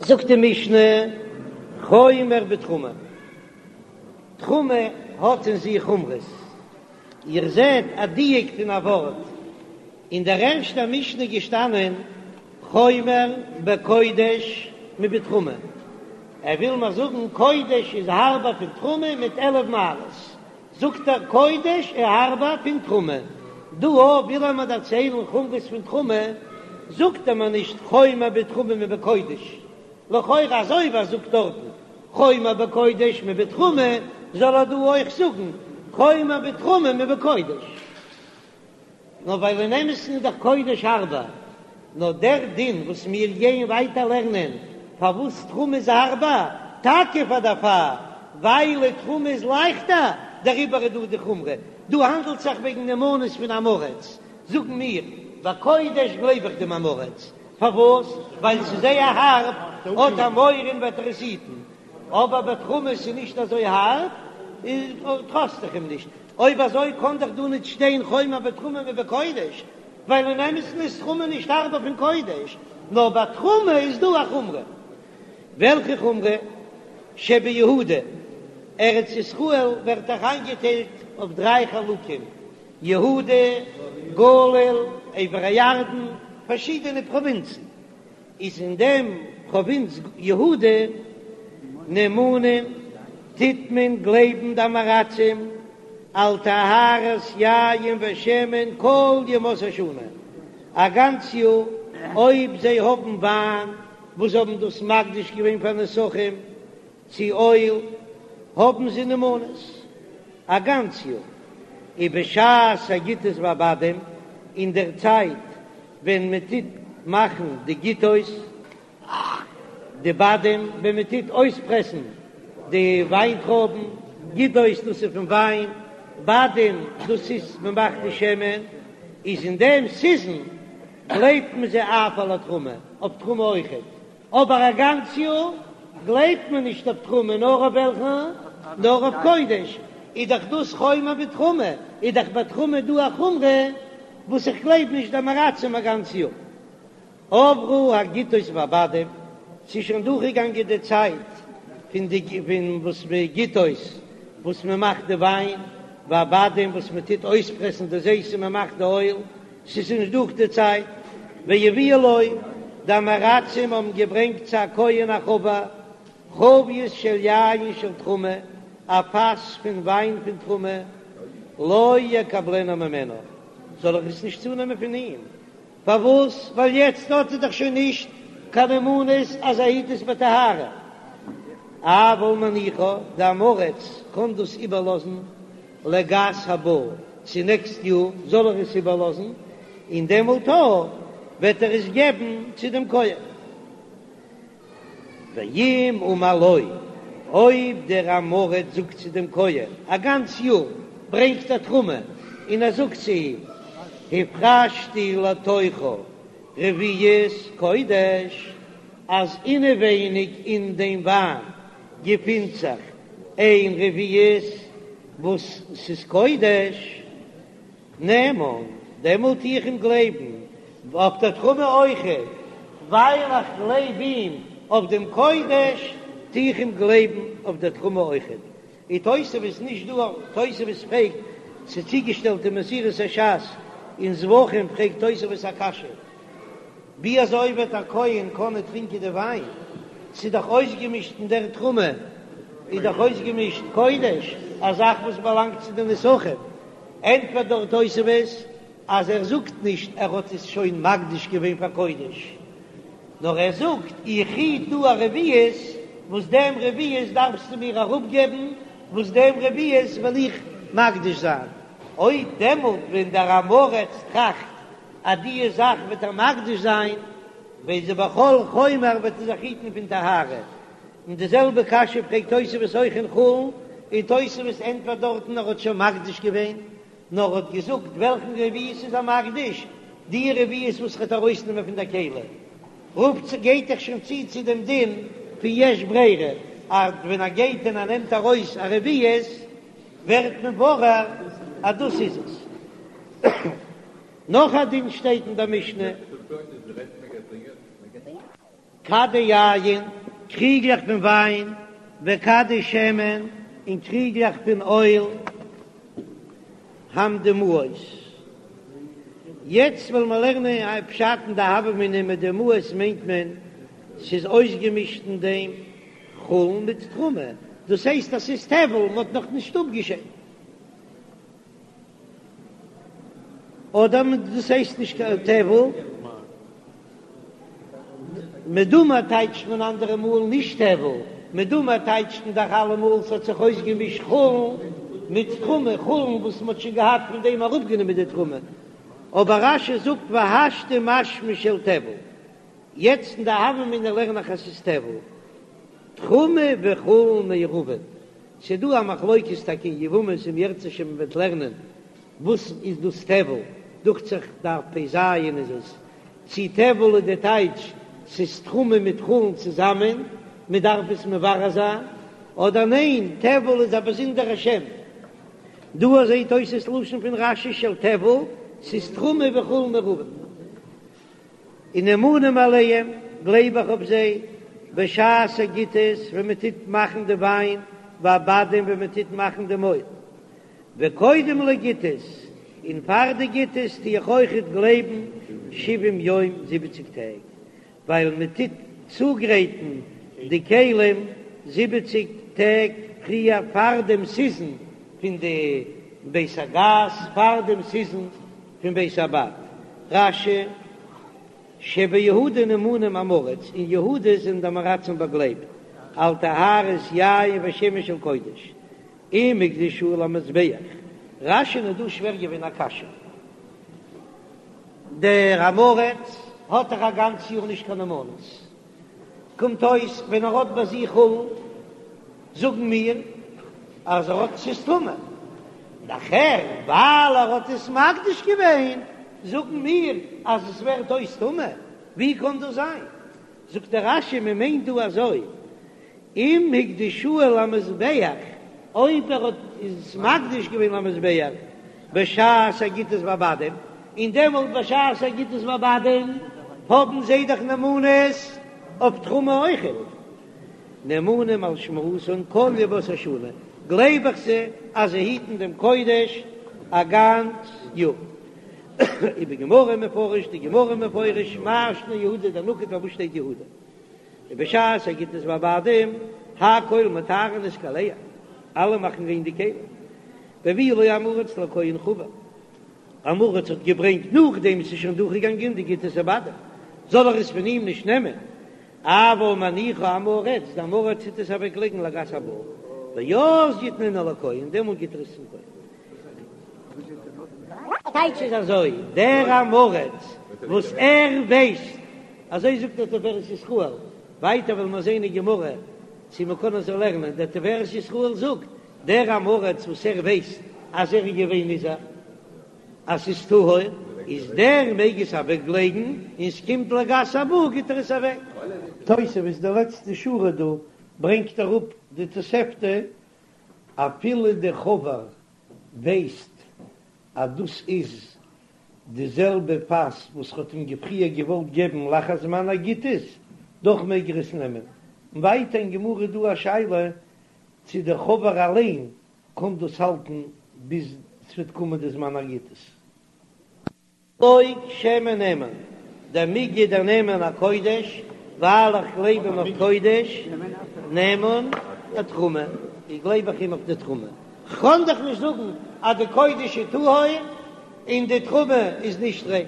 זאגט די משנה, חומר בתרומה, תרומה האט אין זיך חומרות, איר זעט א דיוק פון א ווארט, אין דער ערשטער משנה געשטאנען חומר בקודש מבתרומה, ער וויל מיר זאגן קודש איז הארבער פון תרומה מיט 11 מעלות, זאגט ער קודש איז הארבער פון תרומה, דא אויב וויל ער מיר דערציילן חומרות פון תרומה, זאגט ער מיר נישט חומר בתרומה מבקודש, לכאורה אזוי ווי ער זאגט דארטן חומר בקודש מבתרומה, זאל ער דא אויך זאגן חומר בתרומה מבקודש. נאר ווייל אין אמת'ן איז דאך קודש הארבער, נאר דער דין וואס מיר גייען ווייטער לערנען פארוואס תרומה איז הארבער, טאקע פאר דערפאר ווייל תרומה איז לייכטער, דעריבער איז דא די חומרא, דא האנדלט זיך וועגן נאמנות פון עם הארץ, זאגן מיר, ביי קודש גלייב איך דעם עם הארץ, פארוואס? ווייל ס'איז זייער הארב, האט ער מורא און וועט ער עס היטן, אבער ביי תרומה איז נישט אזוי הארב, טראסט איך אים נישט. אויב אזוי קאן דאך דא ניט שטיין חומר בתרומה מבקודש, ווייל אין אמת'ן איז תרומה נישט הארבער פון קודש, נאר ביי תרומה איז דא א חומרא. וועלכע חומרא? שביהודה, ארץ ישראל ווערט דאך איינגעטיילט אויף דריי חלקים, יהודה, גליל, עבר הירדן, פארשידענע פראווינצן. איז אין דעם פראווינץ יהודה נאמנים טוט מען גלייבן די עם הארצים על טהרת יין ושמן כל ימות השנה, א גאנץ יאר, אויב זיי האבן וויין וואס זיי האבן דאס מקדיש געווען פאר נסכים צו אויל, האבן זיי נאמנות א גאנץ יאר, ובשעת הגיתות והבדים, אין דער צייט ווען מען טוט מאכן די גיתות, די בדים, ווען מען טוט אויספרעסן די וויינטרויבן, גיתות דאס איז פון וויין, בדים דאס איז מען מאכט די שמן, איז אין דעם סיזען גלייבט מען זיי אף על התרומה, אויף תרומה אויכעט, אבער א גאנץ יאר גלייבט מען נישט אויף תרומה נאר אויף וועלכן? נאר אויף קודש, איז דאך דאס חומר בתרומה, איז דאך ביי תרומה דא א חומרא וואס איך גלייב נישט די עם הארצים א גאנץ יאר. עברו הגיתות והבדים, ס'איז שוין דורכגעגאנגען די צייט פון די פון וואס מען גיתות וואס מען מאכט די וויין, והבדים וואס מען טוט אויספרעסן די זיתים מען מאכט די אויל, ס'איז נישט דורך די צייט, והביאו לו, די עם הארצים האבן געברענגט צו א כהן א חבר, חבית של יין של תרומה, א פאס פון וויין פון תרומה, לא יקבלנה ממנו, זאל איך עס נישט צונעמען פון אים, פארוואס? ווייל יעצט האט ער דאך שוין נישט קיין נאמנות אז ער היט עס בטהרה, אבל מניחה, די עם הארץ קען דאס איבערלאזן לגת הבאה, צו נעקסט יאר זאל ער עס איבערלאזן, און דעמאלט וועט ער עס געבן צו דעם כהן. ואם אמר לו, אויב דער עם הארץ זאגט צו דעם כהן, א גאנץ יאר ברענגט ער תרומה, און ער זאגט צו אים, הפרשתי לתוכה רביעית קודש, אז אינעווייניג אין דעם וויין געפינט זיך איין רביעית וואס ס'איז קודש, נאמן, דעמאלט טו איך אים גלייבן אויף דער תרומה אויכעט, ווייל איך גלייב אים אויף דעם קודש, טו איך אים גלייבן אויף דער תרומה אויכעט. און תוספות נישט דא, תוספות פרעגט, ס'איז צוגעשטעלט אין מסורת הש"ס אין זבחים פרעגט תוספות א קשיא, ווי אזוי וועט א כהן קענען טרינקען די וויין? ס'איז דאך אויסגעמישט אין דער תרומה, איז דאך אויסגעמישט קודש, א זאך וואס באלאנגט צו די נסכים. ענטפערט דארט תוספות אז ער זאגט נישט ער האט עס שוין מקדיש געווען פאר קודש, נאר ער זאגט איך היט דא א רביעית, וואס דעם רביעית דארפסטו מיר אראפגעבן, וואס דעם רביעית וועל איך מקדיש זיין. אויב דעמאלט ווען דער עם הארץ טראכט אז די זאך וועט ער מקדיש זיין, ואיזה בכל חומר וועט ער זיך היטן פון טהרה. און די זעלבע קשיא פרעגט תוספות אויך אין חולין, און תוספות ענטפערט דארטן ער האט שוין מקדיש געווען, נאר ער האט געזאגט וועלכן רביעית איז ער מקדיש, די רביעית וואס ער וועט ארויסנעמען פון דער כלי, רופט זיך גייט דאך שוין צו צו דעם דין פון יש ברירה, אז ווען ער גייט און ער נעמט ארויס א רביעית ווערט מבורר אז דאס איז עס. נאך א דין שטייט אין דער משנה. כדי יין, קריגלעך פון וויין, וכדי שמן, און קריגלעך פון אויל, המדומעות. יעצט וועלן מיר לערנען א פשט אין די הוה אמינא מדומעות מיינט מען ס'איז אויסגעמישט אין דעם חולין מיט תרומה, דאס הייסט אז ס'איז טבל, מ'האט נאך נישט אפגעשיידט. אדער דאס הייסט נישט קיין טבל. מדומע טייטשט מען אנדערע מאל נישט טבל, מדומע טייטשט מען דאך אלעמאל ס'האט זיך אויסגעמישט חולין מיט תרומה, חולין וואס מ'האט שוין געהאט פון דעם אראפגענומען די תרומה, אבער רש"י זאגט והשתא משמע של טבל, יעצט אין די הוה אמינא לערן איך אז ס'איז טבל, תרומה וחולין מעורבין, ס'דא א מחלוקת טאקע אין יבמות אם ירצה השם מ'וועט לערנען וואס איז דאס טבל, דוכט זיך דף פ"ז איז עס, צי טבל איז די טייטש ס'איז תרומה מיט חולין צוזאמען, מ'דארף עס מברר זיין, אדער ניין טבל איז א באזונדערע שם. דא זעהט אויס עס לשון פון רש"י של טבל, ס'איז תרומה וחולין מעורבין. און נאמנים עליהם, גלייב איך אויף זיי, בשעת הגיתות ווען מען טוט מאכן די וויין, והבדים ווען מען טוט מאכן דעם אויל, וקודם לגיתות, און פאר די גיתות טו איך אויכעט גלייבן שבעים יום זיבעציג טעג, ווייל מען טוט צוגרייטן די כלים זיבעציג טעג פריער פאר דעם סיזען פון די בית הגת, פאר דעם סיזען פון בית הבד. רש"י, שביהודה נאמנים עם הארץ, אין יהודה זענען די עם הארצים באגלייבט על טהרת יין ושמן של קודש, אם הקדישוהו למזבח. רש"י'ן איז דא שווער געווען א קשיא, דער עם הארץ האט דאך א גאנץ יאר נישט קיין נאמנות, קומט אויס ווען ער האט ביי זיך חולין, זאגן מיר אז ער האט ס'איז טמא, נאכער ווייל ער האט עס מקדיש געווען זאגן מיר אז עס ווערט אויס טמא, ווי קען דאס זיין? זאגט דער רש"י מען מיינט דא אזוי, אם הקדישוהו למזבח, אויב ער האט עס מקדיש געווען למזבח בשעת הגיתות והבדים, און דעמאלט בשעת הגיתות והבדים האבן זיי דאך נאמנות אויף תרומה אויכעט, נאמנים על שמירתן כל ימות השנה, גלייב איך זיי אז זיי היטן דעם קודש א גאנץ יאר. ובגמרא מפרש, די גמרא מפרש, מאי שנא יהודה דנקט פארוואס שטייט יהודה? ובשעת הגיתות והבדים, הכל מטהרין את כליהם, אלע מאכן ריין די כלים. והביאו לו עם הארץ לכהן חבר, עם הארץ האט געברענגט נאכדעם עס איז שוין דורכגעגאנגען די גיתות ובדים, זאל ער עס פון אים נישט נעמען, אבל מניחו עם הארץ, די עם הארץ טוט עס אוועקלייגן לגת הבא, ואז יתננו לכהן, דעמאלט גיט ער עס צום כהן. טייטש איז אזוי, דער עם הארץ וואס ער ווייסט, אזוי זאגט דער תפארת ישראל, ווייטער וועלן מיר זען אין גמרא צו מען קען אזוי לערנען, דער תפארת ישראל זאגט, דער עם הארץ וואס ער ווייסט אז ער איז געווען נזהר אז ס'איז טהור, איז דער מעג עס אוועק לייגן, און ס'קומט לגת הבא גיט ער עס אוועק. תוספות די לעצטע שורה דא ברענגט אראפ די תוספתא אפילו די חבר ווייסט אז דאס איז די זעלבע פאס וואס ר'האט אים פריער געוואלט געבן לאחר זמן הגיתות, דאך מעג ער עס נעמען. און ווייטער אין גמרא איז דא א שאלה צו דער חבר אליין קען דאס האלטן ביז ס'וועט קומען די זמן הגיתות. לוג שמן נאמן, דמיגו דנאמן אקודש, ווייל איך גלייב אים אויף קודש, נאמן אתרומה, איך גלייב איך אים אויף די תרומה. כ'קען דאך נישט זאגן אז די קודש איז טהור און די תרומה איז נישט ריין.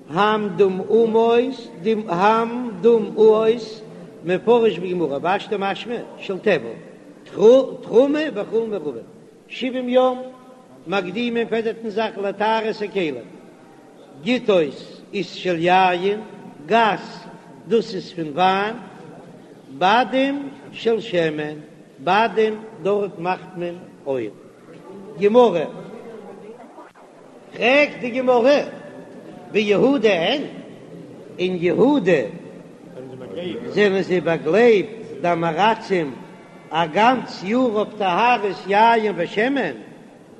המדומעות, המדומעות, מפרש בגמרא, והשתא משמע של טבל, תרומה וחולין מעורבין. שבעים יום מקדימין פעדערט מען זיך לטהר את הכלים, גיתות איז של יין, גת דאס איז פון וויין, בדים של שמן, בדים דארט מאכט מען אויל. גמרא. פרעגט די גמרא, ביהודה אין, אין יהודה זענען זיי באגלייבט די עם הארצים א גאנץ יאר אויף טהרת יין ושמן,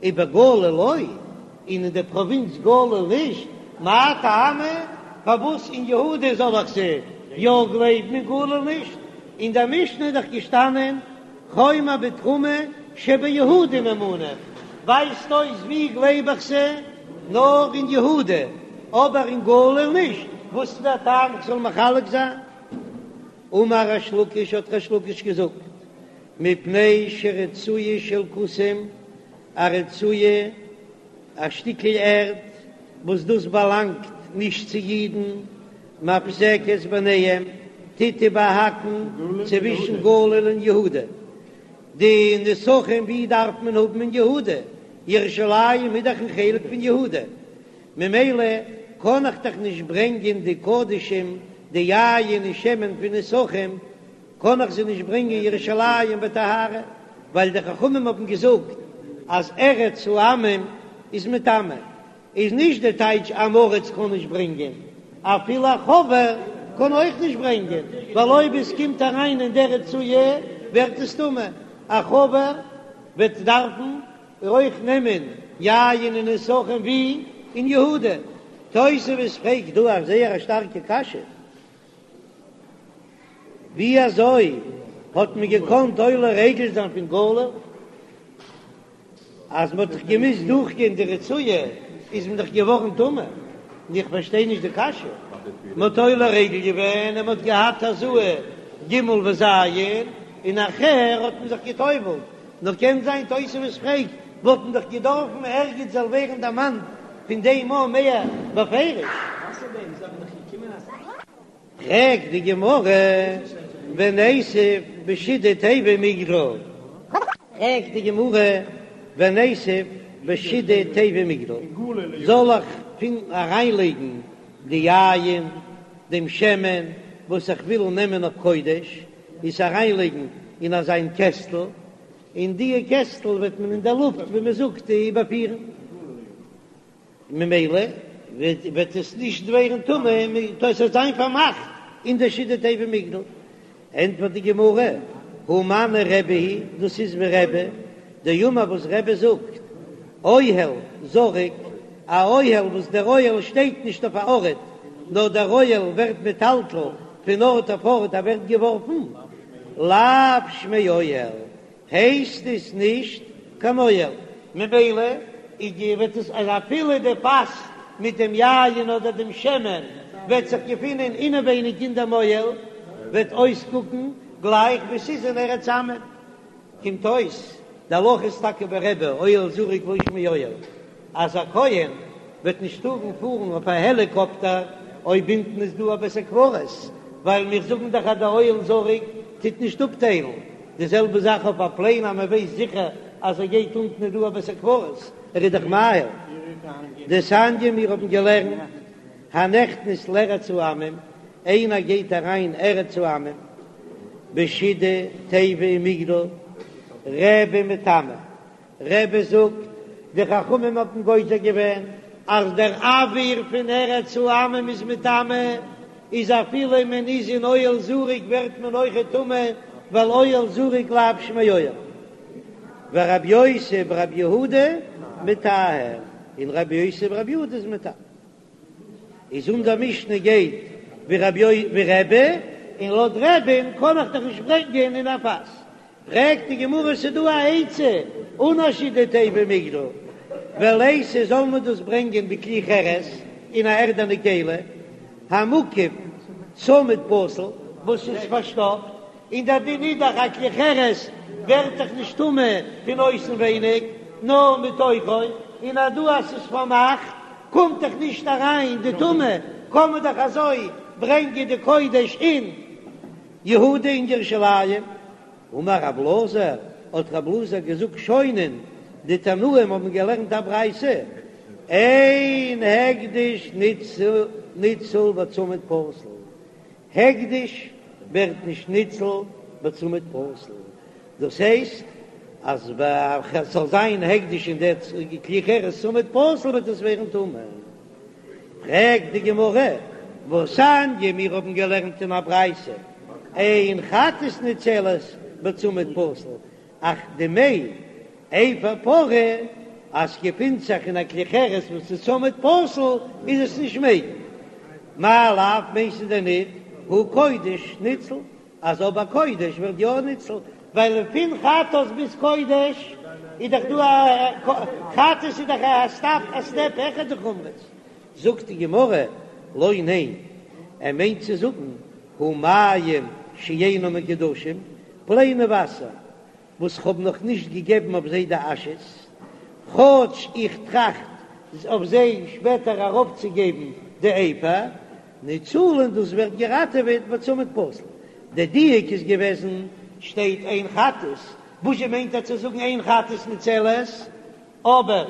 ובגליל לא, און אין די פראווינץ גליל נישט, מאי טעמא פארוואס אין יהודה זאל איך זיי. יא גלייבן אין גליל נישט, אין דער משנה איז דאך געשטאנען חומר בתרומה שביהודה נאמנים, ווייזט אויס ווי גלייב איך זיי? נאר אין יהודה, אבער אין גליל נישט, וואס איז דער טעם איך זאל מחלק זיין? אמר ריש לקיש האט ריש לקיש געזאגט, מפני שרצועה של כותים, א רצועה, א שטיקל ערד וואס דאס באלאנגט נישט צו אידן, מפסקת ביניהם, טוט איבערהאקן צווישן גליל און יהודה. די נסכים ווי דארף מען האבן אין יהודה? ירושלים איז דאך אין חלק פון יהודה, ממילא קען איך דאך נישט ברענגען די קדשים, די יין און שמן פון נסכים, קען איך זיי נישט ברענגען ירושלים בטהרה, ווייל די חכמים האבן געזאגט אז ארץ העמים איז מטמא, איז נישט די טייטש עם הארץ קען נישט ברענגען, אפילו א חבר קען אויך נישט ברענגען, ווייל אויב עס קומט אריין אין דער רצועה ווערט עס טמא, א חבר וועט דארפן אויך נעמען יין און נסכים ווי אין יהודה. תוספות פרעגט דא א זייער א שטארקע קשיא. ווי אזוי האט מען געקאנט עולה רגל זיין פון גליל? אז מען האט דאך געמוזט דורכגיין די רצועה איז מען דאך געווארן טמא, און איך פארשטיי נישט די קשיא, מען האט עולה רגל געווען און מען האט געהאט הזאה ג' וז' און נאכהער האט מען זיך גע'טובל'ט, נאר קען זיין תוספות פרעגט וואלט מען דאך געדארפן ערגעץ זאל ווערן דערמאנט פון דעם מאל מער בפירוש. פרעגט די גמרא וניתיב בשידה תיבה ומגדל, פרעגט די גמרא וניתיב בשידה תיבה ומגדל, זאל איך פון אריינלייגן די יין דעם שמן וואס איך וויל נעמען אויף קודש, עס אריינלייגן אין אזיין קעסטל, און דיע קעסטל וועט מען אין דער לופט ווי מען זאגט איבערפירן, ממילא וועט עס נישט ווערן טמא, עס וועט זיין פארמאכט אין די שידה תיבה ומגדל. ענטפערט די גמרא, הא מני רבי היא, דאס איז ווי רבי, דאמר וואס רבי זאגט, אוהל זרוק, א אוהל וואס דער אוהל שטייט נישט אויף א ארט, נאר דער אוהל ווערט מטלטל פון ארט אויף ארט, ער ווערט געווארפן, לאו שמיה אוהל, הייסט עס נישט קיין אוהל, ממילא איז וועט עס אז אפילו די פאס מיט דעם יין אדער דעם שמן וועט זיך געפינען אינעווייניג אין דעם אוהל, וועט אויסקוקן גלייך ווי ס'איז אין ארץ העמים. קומט אויס די הלכה איז טאקע ווי רבי אוהל זרוק לא שמיה אוהל, אז א כהן וועט נישט טארן פארן אויף א העליקאפטער אויב אונטן איז דא א בית הקברות, ווייל מיר זאגן דאך אז די אוהל זרוק טוט נישט אפטיילן, די זעלבע זאך אויף א פלעין אז מען ווייסט זיכער אז ער גייט אונטן איז דא א בית הקברות, ער איז דאך מאהיל. דתניא מיר האבן געלערנט הנכנס לארץ העמים, איינער גייט אריין ארץ העמים בשידה תיבה ומגדל, רבי מטמא, רבי זאגט, די חכמים האבן גוזר געווען אז דער אוויר פון ארץ העמים איז מטמא, איז אפילו מען איז אין אוהל זרוק ווערט מען אויכעט טמא, ווייל אוהל זרוק לאו שמיה אוהל. ורבי יוסי ברבי יהודה מטהר, און רבי יוסי ברבי יהודה איז מטהר. איז אונזער משנה גייט ווי רבי, און לויט רבי'ן קען איך דאך נישט ברענגען אין א פאס. פרעגט די גמרא ס'איז דא א עצה אן א שידה תיבה ומגדל, וליתו זאל מען דאס ברענגען בכלי חרס אין א ערדענע כלי המוקף צמיד פתיל וואס איז פארשטאפט, און דער דין איז דאך א כלי חרס ווערט דאך נישט טמא פון אויסנווייניג נאר מתוכו, און אז דא אז ס'איז פארמאכט קומט דאך נישט אריין די טומאה, קען מען דאך אזוי ברענגען די קודש אין יהודה אין ירושלים. אמר רב אלעזר, האט רב אלעזר געזאגט שונין, די תנאים האבן געלערנט א ברייתא, אין הקדש ניצול בצמיד פתיל, הקדש ווערט נישט ניצול בצמיד פתיל, דאס הייסט אז ווען ס'זאל זיין הקדש אין דער כלי חרס צמיד פתיל וועט עס ווערן טמא. פרעגט די גמרא, והתניא, מיר האבן געלערנט אין א ברייתא, אין חטאת ניצלת בצמיד פתיל, אך די מי אפר פרה אז ס'געפינט זיך אין א כלי חרס וואס איז צמיד פתיל איז עס נישט מעגליך. מאי לאו מיינסטו דען ניט? הא קודש ניצל, אז אבער קודש ווערט יא ניצל, ווייל פון חטאת ביז קודש איז דאך דא א חטאת איז דאך א סטעפ א סטעפ העכער די חומרות, זאגט די גמרא, לא ניין, ער מיינט צו זאגן הא מים שאינם מקודשים, פלעינע וואסער וואס כ'האב נאך נישט געגעבן אויף זיי די אשעס, כאטש איך טראכט אויף זיי שפעטער ארויפצוגעבן די אפר, ניצולין דאס ווערט געראטעוועט בצמיד פסול. די דיוק איז געוועזן שטייט אין חטאת, וואזשע מיינט ער צו זאגן אין חטאת ניצלת, אבער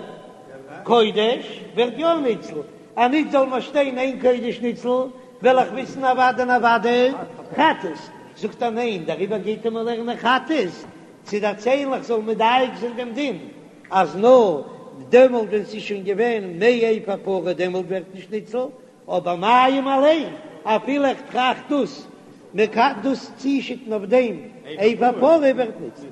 קודש ווערט יא ניצל, אז נישט זאל מיר שטיין אין קודש ניצל, וועל איך וויסן אוודאי און אוודאי חטאת. זאגט ער ניין, דעריבער גייט ער מיר לערנען חטאת, צו דערציילן איך זאל מדייק זיין דעם דין, אז נאר דעמאלט ווען ס'איז שוין געווען מי אפר פרה דעמאלט ווערט נישט ניצל, אבער מים אליין, אפילו איך טראכט דאס, מ'קען דאס צושיטן אויף דעם אפר פרה ווערט ניצל.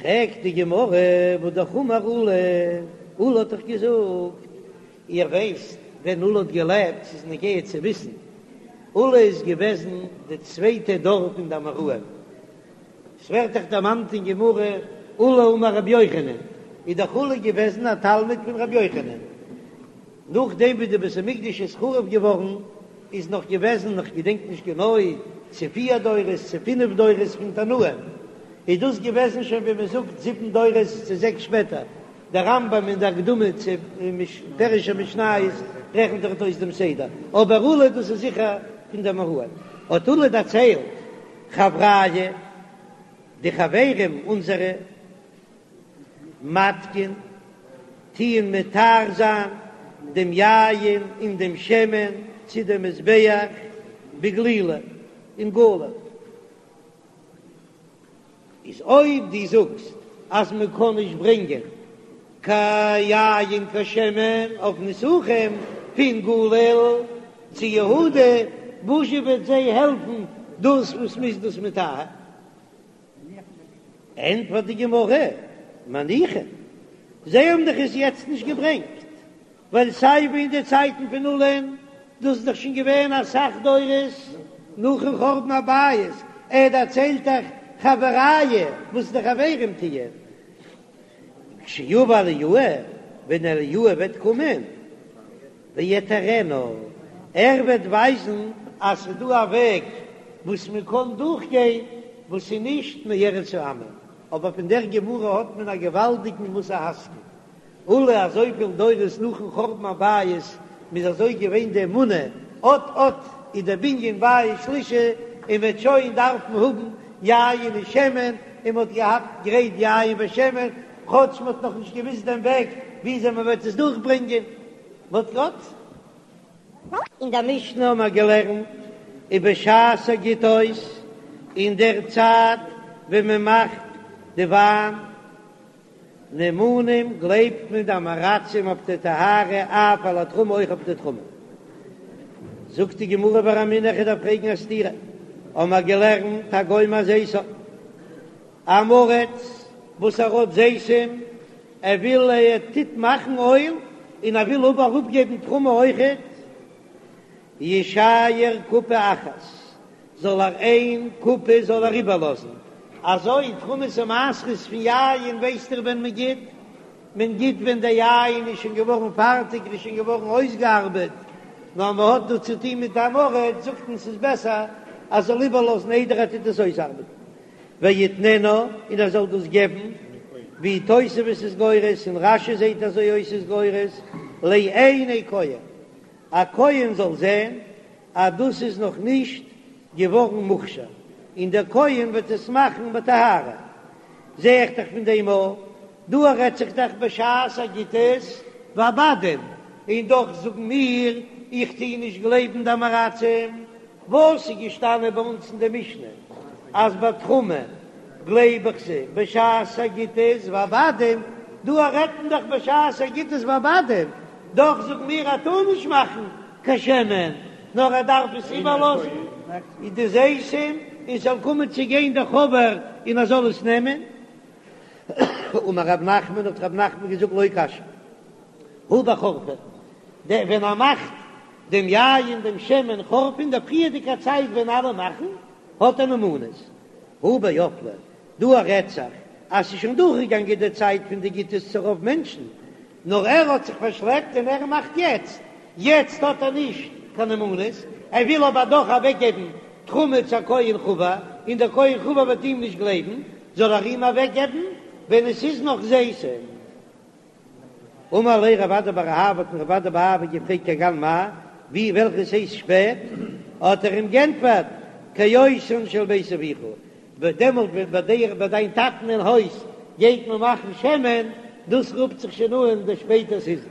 פרעגט די גמרא, והא אמר עולא, עולא האט דאך געזאגט, איר ווייסט ווען עולא האט געלעבט, ס'איז נוגע צו וויסן, עולא איז געוועזן די צווייטע דור פון די אמוראים, ס'ווערט דאך דערמאנט אין גמרא, עולא אמר רבי יוחנן, איז דאך עולא געוועזן א תלמיד פון רבי יוחנן, נאכדעם ווי די בית המקדש איז חרוב געווארן, איז נאך געוועזן, איך געדענק נישט גענוי, צו פיר דורות צו פינף דורות פון תנאים, איז דאס געוועזן שוין ווי מען זאגט זיבן דורות צו זעקס שפעטער, דער רמב"ם אין די הקדמה צו פירוש המשניות רעכנט דארט אויס דעם סדר, אבער עולא דאס איז זיכער פון די אמוראים, האט עולא דערציילט חבריא, די חברים אונזערע, מדכן, טוען מטהר זיין דעם יין און דעם שמן צו דעם מזבח בגלילא אין גליל. איז אויב דו זאגסט אז מען קען נישט ברענגען קיין יין קיין שמן אויף נסכים פון גליל צו יהודה, וואזשע וועט זיי העלפן דאס וואס מ'איז דאס מטהר? ענטפערט די גמרא, מניחין, זיי האבן דאך עס יעצט נישט געברענגט, ווייל סיי ווי אין די צייטן פון עולא'ן, דאס איז דאך שוין געווען אסאך דורות נאכן חורבן הבית, ער דערציילט דאך חבריא וואס די חברים טוען, כשיבא אליהו, ווען אליהו וועט קומען, ויטהרנה, ער וועט ווייזן אז ס'איז דא א וועג וואס מען קען דורכגיין וואס איז נישט מארץ העמים, אבער פון דער גמרא האט מען א געוואלדיגן מוסר השכל, עולא אזויפיל דורות נאכן חורבן הבית מ'איז אזוי געווען די אמונה, אט אט איז דער בנין בית שלישי און מ'וועט שוין דארפן האבן יין און שמן, און מ'האט געהאט גרייט יין ושמן, כאטש מ'האט נאכנישט געוואוסט דעם וועג וויאזוי מ'וועט עס דורכברענגען. וואט גאט? אין דער משנה האבן מיר געלערנט ובשעת הגיתות, אין דער צייט ווען מען מאכט די וויין, נאמנים גלייבט מען די עם הארצים אויף די טהרה אף על התרומה אויך אויף די תרומה. זאגט די גמרא ורמינהו איך דארף פרעגן א סתירה, האבן מיר געלערנט הגומר זיתיו, עם הארץ וואס ער האט זיתים, ער וויל ער טוט מאכן אויל און ער וויל אבער אראפגעבן תרומה אויכעט, ישייר קופה אחת, זאל ער איין קופה זאל ער איבערלאזן, אזוי תרומות ומעשרות פון יין ווייסט איר ווען מען גיט? מען גיט ווען דער יין איז שוין געווארן פארטיג, איז שוין געווארן אויסגעארבעט, נאר מען האט דא צו טון מיט עם הארץ, זאגט מען ס'איז בעסער אז זאל איבערלאזן איידער ער טוט עס אויסארבעטן. ויתננה, און ער זאל דאס געבן, ווי תוספות איז גורס און רש"י זעט אזוי אויס איז גורס, לעיני כהן, א כהן זאל זען אז דאס איז נאך נישט געווארן מוכשר, און דער כהן וועט עס מאכן בטהרה. זע איך דאך פון דעם א, דא רעדט זיך דאך בשעת הגיתות והבדים, און דאך זאגן מיר, איך טו נישט גלייבן די עם הארצים, וואס איז געשטאנען ביי אונז אין די משנה אז ביי תרומה גלייב איך זיי בשעת הגיתות והבדים, דא רעדט מען דאך בשעת הגיתות והבדים, דאך זאגן מיר ער טאר נישט מאכן קיין שמן נאר ער דארף עס איבערלאזן אין די זיתים און ס'זאל קומען צו גיין דער חבר און ער זאל עס נעמען. אמר רב נחמן האט רב נחמן געזאגט לא קשיא הא בחורפא, ווען ער מאכט. דעם יין דעם שמן חרפי אין דער פריערדיגער צייט ווען אלע מאכן, האט ער נאמנות. הא באפלי, דא רעדט זיך אז ס'איז שוין דורכגעגאנגען די צייט פון די גיטות צו רוב מענטשן, נאר ער האט זיך פארשלעפט און ער מאכט יעצט, יעצט האט ער נישט קיין נאמנות, ער וויל אבער דאך אוועקגעבן תרומה צו א כהן חבר, און דער כהן חבר וועט אים נישט גלייבן, זאל ער אים אוועקגעבן ווען עס איז נאך זיתים. אמר ליה רב אדא בר אהבה האט אים רב אדא בר אהבה געפרעגט כגון מאי, ווי וועלכעס הייסט שפעט, האט ער אים גענטפערט, כאותן של בית אביך, דעמאלט ווען ביי דיר ביי דיין טאטן אין הויז גייט מען מאכן שמן, דאס רופט זיך שוין אן די שפעטע סיזן.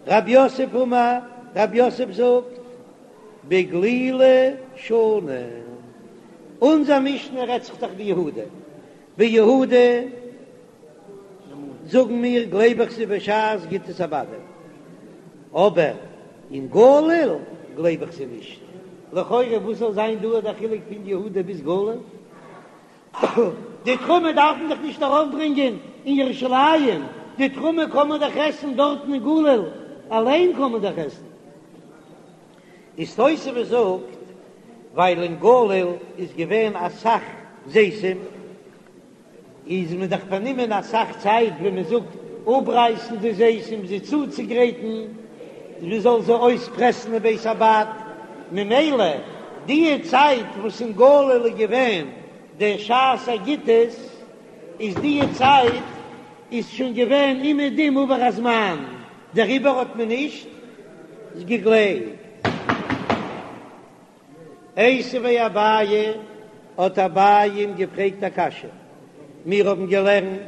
רב יוסף אמר, רב יוסף זאגט, בגלילה שנו, אונזער משנה רעדט זיך דאך ביהודה, ביהודה זאגן מיר גלייב איך זיי בשעת גיטות הבדים, אבער אין גליל גלייב איך זיי נישט, לכאורה וואס זאל זיין דא דער חילוק פון יהודה ביז גליל? די תרומה דארף מען דאך נישט ארויפברענגען אין ירושלים, די תרומה קען מען דאך עסן דארטן אין גליל אליין קען מען דאך עסן. איז תוספות זאגט ווייל אין גליל איז געווען אסאך זיתים, איז מען דאך פארנומען אסאך צייט ווי מען זאגט אפרייסן די זיתים זיי צוצוגרייטן מען זאל זיי אויספרעסן אין בית הבד, ממילא די צייט וואס אין גליל איז געווען די שעת הגיטות איז די צייט איז שוין געווען אומעדום עבר הזמן דעריבער האט מען נישט געגלייבט. איתיביה אביי, האט אביי אים געפרעגט א קשיא, מיר האבן געלערנט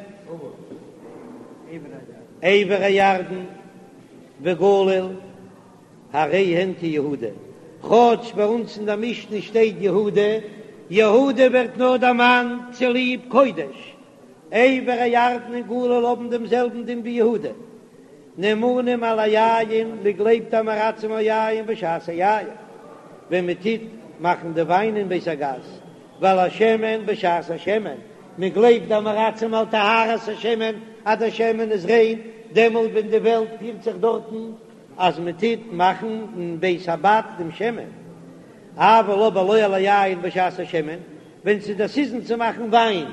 עבר הירדן וגליל הרי הן כיהודה, כאטש ביי אונז אין דער משנה שטייט יהודה, יהודה ווערט נאר דערמאנט צוליב קודש, עבר הירדן און גליל האבן דעם זעלבן דין ווי יהודה, נאמנים על היין, מען גלייבט עם הארצים על היין בשעת היין, ווען מען טוט מאכן די וויין אין בית הגת, ועל השמן בשעת השמן, מען גלייבט עם הארצים על טהרת השמן אז דער שמן איז ריין, דעמאלט ווען די וועלט פירט זיך דארטן אז מען טוט מאכן אין בית הבד דעם שמן, אבל אבער לא על היין בשעת השמן, ווען ס'איז דער סיזען צו מאכן וויין,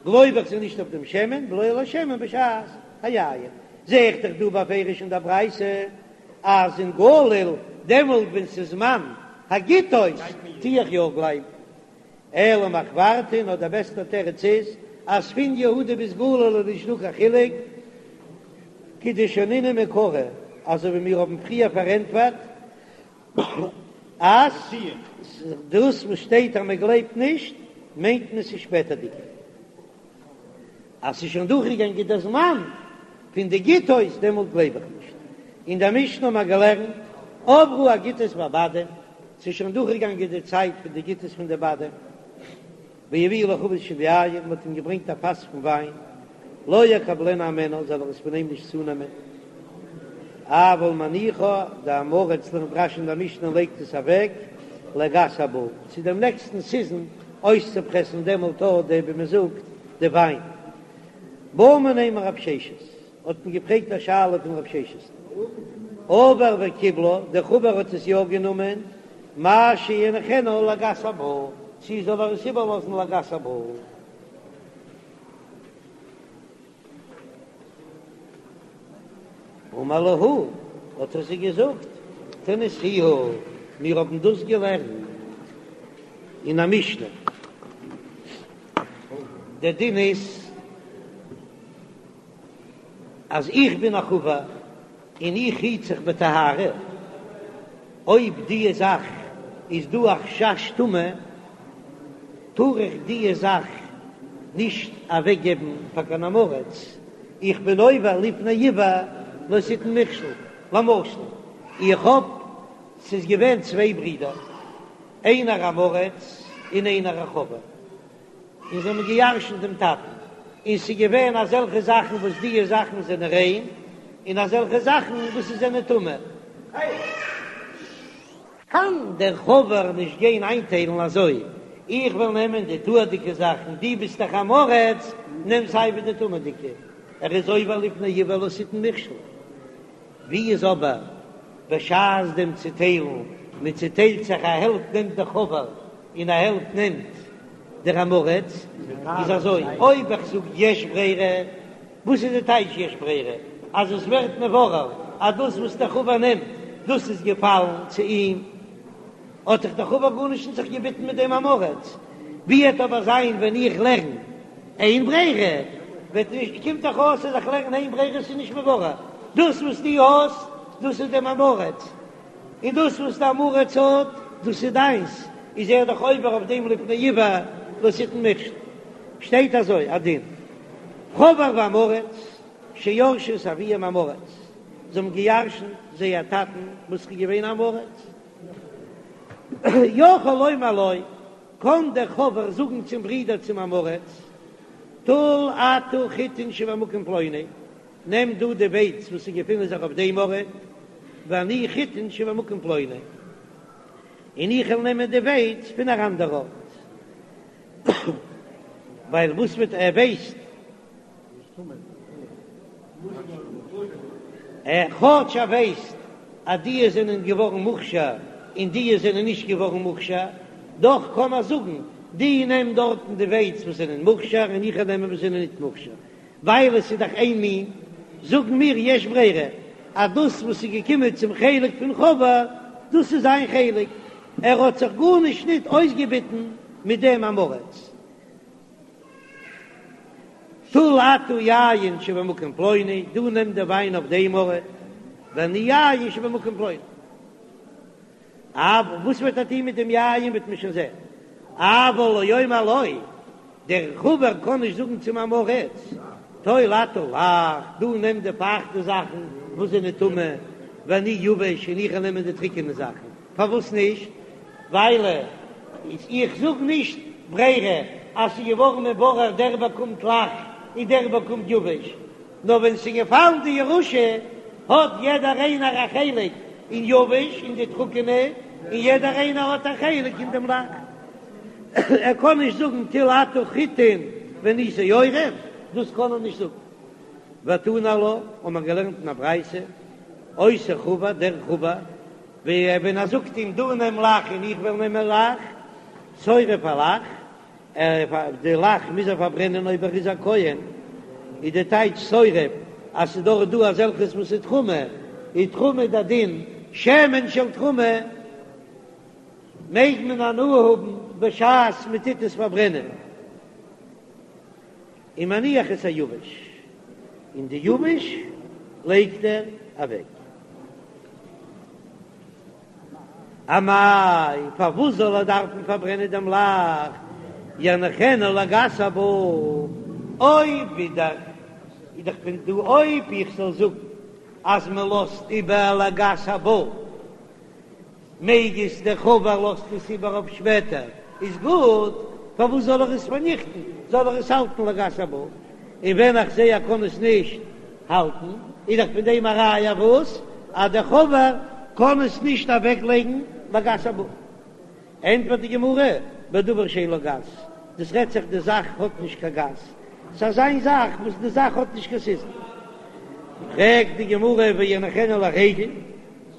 גלויב איך זיי נישט אויף דעם שמן, ולא על השמן בשעת היין. זע איך דאך דא בפירוש אין דער ברייתא אז אין גליל דעמאלט ווען ס'איז זמן הגיטות טו איך יא גלייבן. אלא מחוורתא, נאר דער בעסטער תירוץ איז אז פון יהודה ביז גליל איז נישט דא קיין חילוק, כדשנינן מעיקרא, אזוי ווי מיר האבן פריער פארענטפערט אז דאס וואס שטייט אז מען גלייבט נישט מיינט מען ס'איז שפעטערדיגע, אז ס'איז שוין דורכגעגאנגען דער זמן פון די גיטות דעמאלט גלייב איך נישט. אין דער משנה האט מען געלערנט עברו הגיטות והבדים, ס'איז שוין דורכגעגאנגען די צייט פון די גיטות פון די בדים, והביאו לו חבית של יין, מען האט אים געברענגט א פאס פון וויין, לא יקבלנה הימנו, זאל ער עס פון אים נישט צונעמען, אבל מניחה, דער עם הארץ לערנט רש"י אין דער משנה לייגט עס אוועק, לגת הבא, צו דעם נעקסטן סיזען אויסצופרעסן דעמאלט אט די ווי מען זאגט די וויין. בעו מיניה מרב ששת, האט מען געפרעגט א שאלה פון רב ששת, עבר וקיבלה, דער חבר האט עס יא גענומען, מהו שיניחנה לגת הבא, צי זאל ער עס איבערלאזן לגת הבא? אמר להו, האט ער זיי געזאגט, תניתוה, מיר האבן דאס געלערנט אין א משנה, דער דין איז אז איך בין א חבר און איך היט זיך בטהרה, אויב דיע זאך איז דא א חשש טומאה, טאר איך דיע זאך נישט אוועק געבן פאר קיין עם הארץ, איך בין עובר לפני עור לא תתן מכשול, למשל איך האב, ס'איז געווען צוויי ברידער, איינער עם הארץ און איינער א חבר, און זיי האבן געירשנט דעם טאטן, און ס'איז געווען אזעלכע זאכן וואס דיע זאכן זענען ריין, און אזעלכע זאכן וואס זענען טמא. קען דער חבר נישט גיין איינטיילן אזוי, איך וועל נעמען די טהור'דיגע זאכן, דו ביסט דאך עם הארץ, נעם סיי ווי די טמא'דיגע, ער איז עובר לפני עור לא תתן מכשול. ווי איז אבער? בשעת דעם צעטיילן, מען צעטיילט זיך א העלפט נעמט דער חבר און א העלפט נעמט דער עם הארץ, איז אזוי, אויב איך זאג יש ברירה, וואס איז די טייטש יש ברירה? אז עס ווערט מבורר אז דאס וואס דער חבר נעמט דאס איז געפאלן צו אים, האט דאך דער חבר גארנישט נישט זיך געביטן מיט דעם עם הארץ. ווי וועט אבער זיין ווען איך לערן אין ברירה, וועט נישט, קומט דאך אויס אז איך לערן אין ברירה ס'איז נישט מבורר, דאס וואס דו האסט דאס איז דעם עם הארץ, און דאס וואס דער עם הארץ האט דאס איז דיינס, איז ער דאך עובר אויף דעם לפני עור לא תתן מכשול. שטייט אזוי א דין, חבר ועם הארץ שירשו את אביהם עם הארץ, זיי האבן געירשנט זייער טאטן וואס איז געווען עם הארץ, יכול לומר לו, קען דער חבר זאגן צום ברודער צום עם הארץ, טול אתה חיטין שבמקום פלוני, נעם דו די ווייץ וואס ס'געפינען זיך אויף דעם ארט, ואני חיטין שבמקום פלוני, און איך וועל נעמען די ווייץ פון אן אנדער ארט, ווייל וואס וועט ער ווייסט. כאטש ער ווייסט אז דיע זענען געווארן מוכשר און דיע זענען נישט געווארן מוכשר, דאך קען ער זאגן, דו נעם דארטן די ווייץ וואס זענען מוכשר און איך וועל נעמען וואס זענען ניט מוכשר, ווייל עס איז דאך איין מין, זאגן מיר יש ברירה אז דאס וואס איז געקומען צום חלק פון חבר, דאס איז זיין חלק, ער האט זיך גארנישט ניט אויסגעביטן מיט דעם עם הארץ. טול אתה יין שבמקום פלוני, דו נעם די וויין אויף דעם ארט, ואני יין שבמקום פלוני. אבער וואס וועט ער טון מיט דעם יין וועט מען שוין זען. אבל לא יאמר לו, דער חבר קען נישט זאגן צום עם הארץ, טול אתה לח, דו נעם די פייכטע זאכן וואס זענען טמא, ואני יבש, און איך וועל נעמען די טריקענע זאכן. פארוואס נישט? ווייל איך זאג נישט ברירה אז ס'איז געווארן מבורר דער באקומט לח און דער באקומט יבש, נאר ווען ס'איז געפאלן די ירושה האט יעדער איינער א חלק אין יבש אין די טרוקענע און יעדער איינער האט א חלק אין דעם לח. ער קען נישט זאגן טול אתה חיטין ואני שעורים, דאס קען ער נישט זאגן. ותנא עלה, האט מען געלערנט אין א ברייתא, אותו חבר, דער חבר, ווען ער זאגט אים דו נעם לח און איך וועל נעמען לח, שורף הלח, די לח מוז ער פארברענען אויב ער איז א כהן, איז די טייטש שורף אז ס'איז דאך דא אזעלכעס וואס איז תרומה, איז תרומה די דין שמן של תרומה מעג מען הנאה האבן בשעת מען טוט עס פארברענען. ומניח את היבש, און די יבש לייגט ער אוועק. אמאי, פארוואס זאל ער דארפן פארברענען דעם לח? יניחנה לגת הבאה, אויב ווידער איז דאך פון דא אויב איך זאל זאגן אז מען לאזט איבער לגת הבאה, מעג עס דער חבר לאזט עס איבער אויף שפעטער איז גוט, פארוואס זאל ער עס פארניכטן, זאל ער עס האלטן לגת הבאה, און ווען איך זעה ער קען עס נישט האלטן, איז דאך פון דעם א ראיה וואס אז דער חבר קען עס נישט אוועק לייגן לגת הבאה. ענטפערט די גמרא, בדבר שאין לו גת, דאס רעדט זיך די זאך האט נישט קיין גת, ס'איז אזא זאך וואס די זאך האט נישט קיין ס'איז. פרעגט די גמרא ויניחנה לרגל,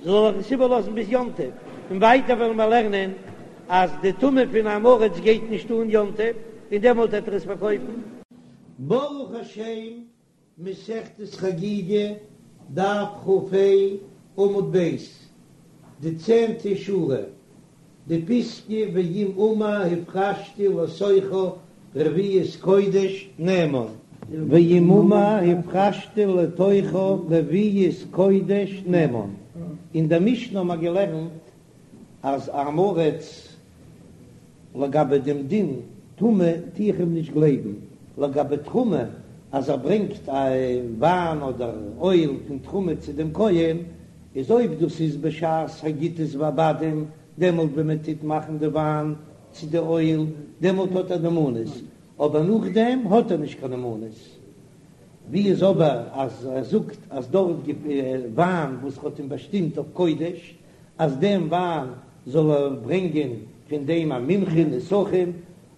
זאל ער עס איבערלאזן ביז יום טוב, און ווייטער וועלן מיר לערנען אז די טומאה פון עם הארץ גייט נישט אן יום טוב, און דעמאלט וועט ער עס פארקויפן. ברוך השם, מסכת חגיגה, דף כ"ה, עמוד ב', די צענטע שורה, די פיסקא ואם אמר הפרשתי לתוכה רביעית קודש נאמן. ואם אמר הפרשתי לתוכה רביעית קודש נאמן, אין דער משנה האבן מיר געלערנט אז עם הארץ לגבי דעם דין טומאה טו איך אים נישט גלייבן, לגבי תרומה אז ער ברענגט א וויין אדער אויל פון תרומה צו דעם כהן, איז אויב דאס איז בשעת הגיתות והבדים, דעמאלט ווען מען טוט מאכן די וויין צו די אויל, דעמאלט האט ער נאמנות, אבער נאכדעם האט ער נישט קיין נאמנות. ווי איז אבער אז ער זאגט אז דארט וויין וואס ער האט אים באשטימט אויף קודש, אז דעם וויין זאל ער ברענגען פון דעם א מנחה נסכים,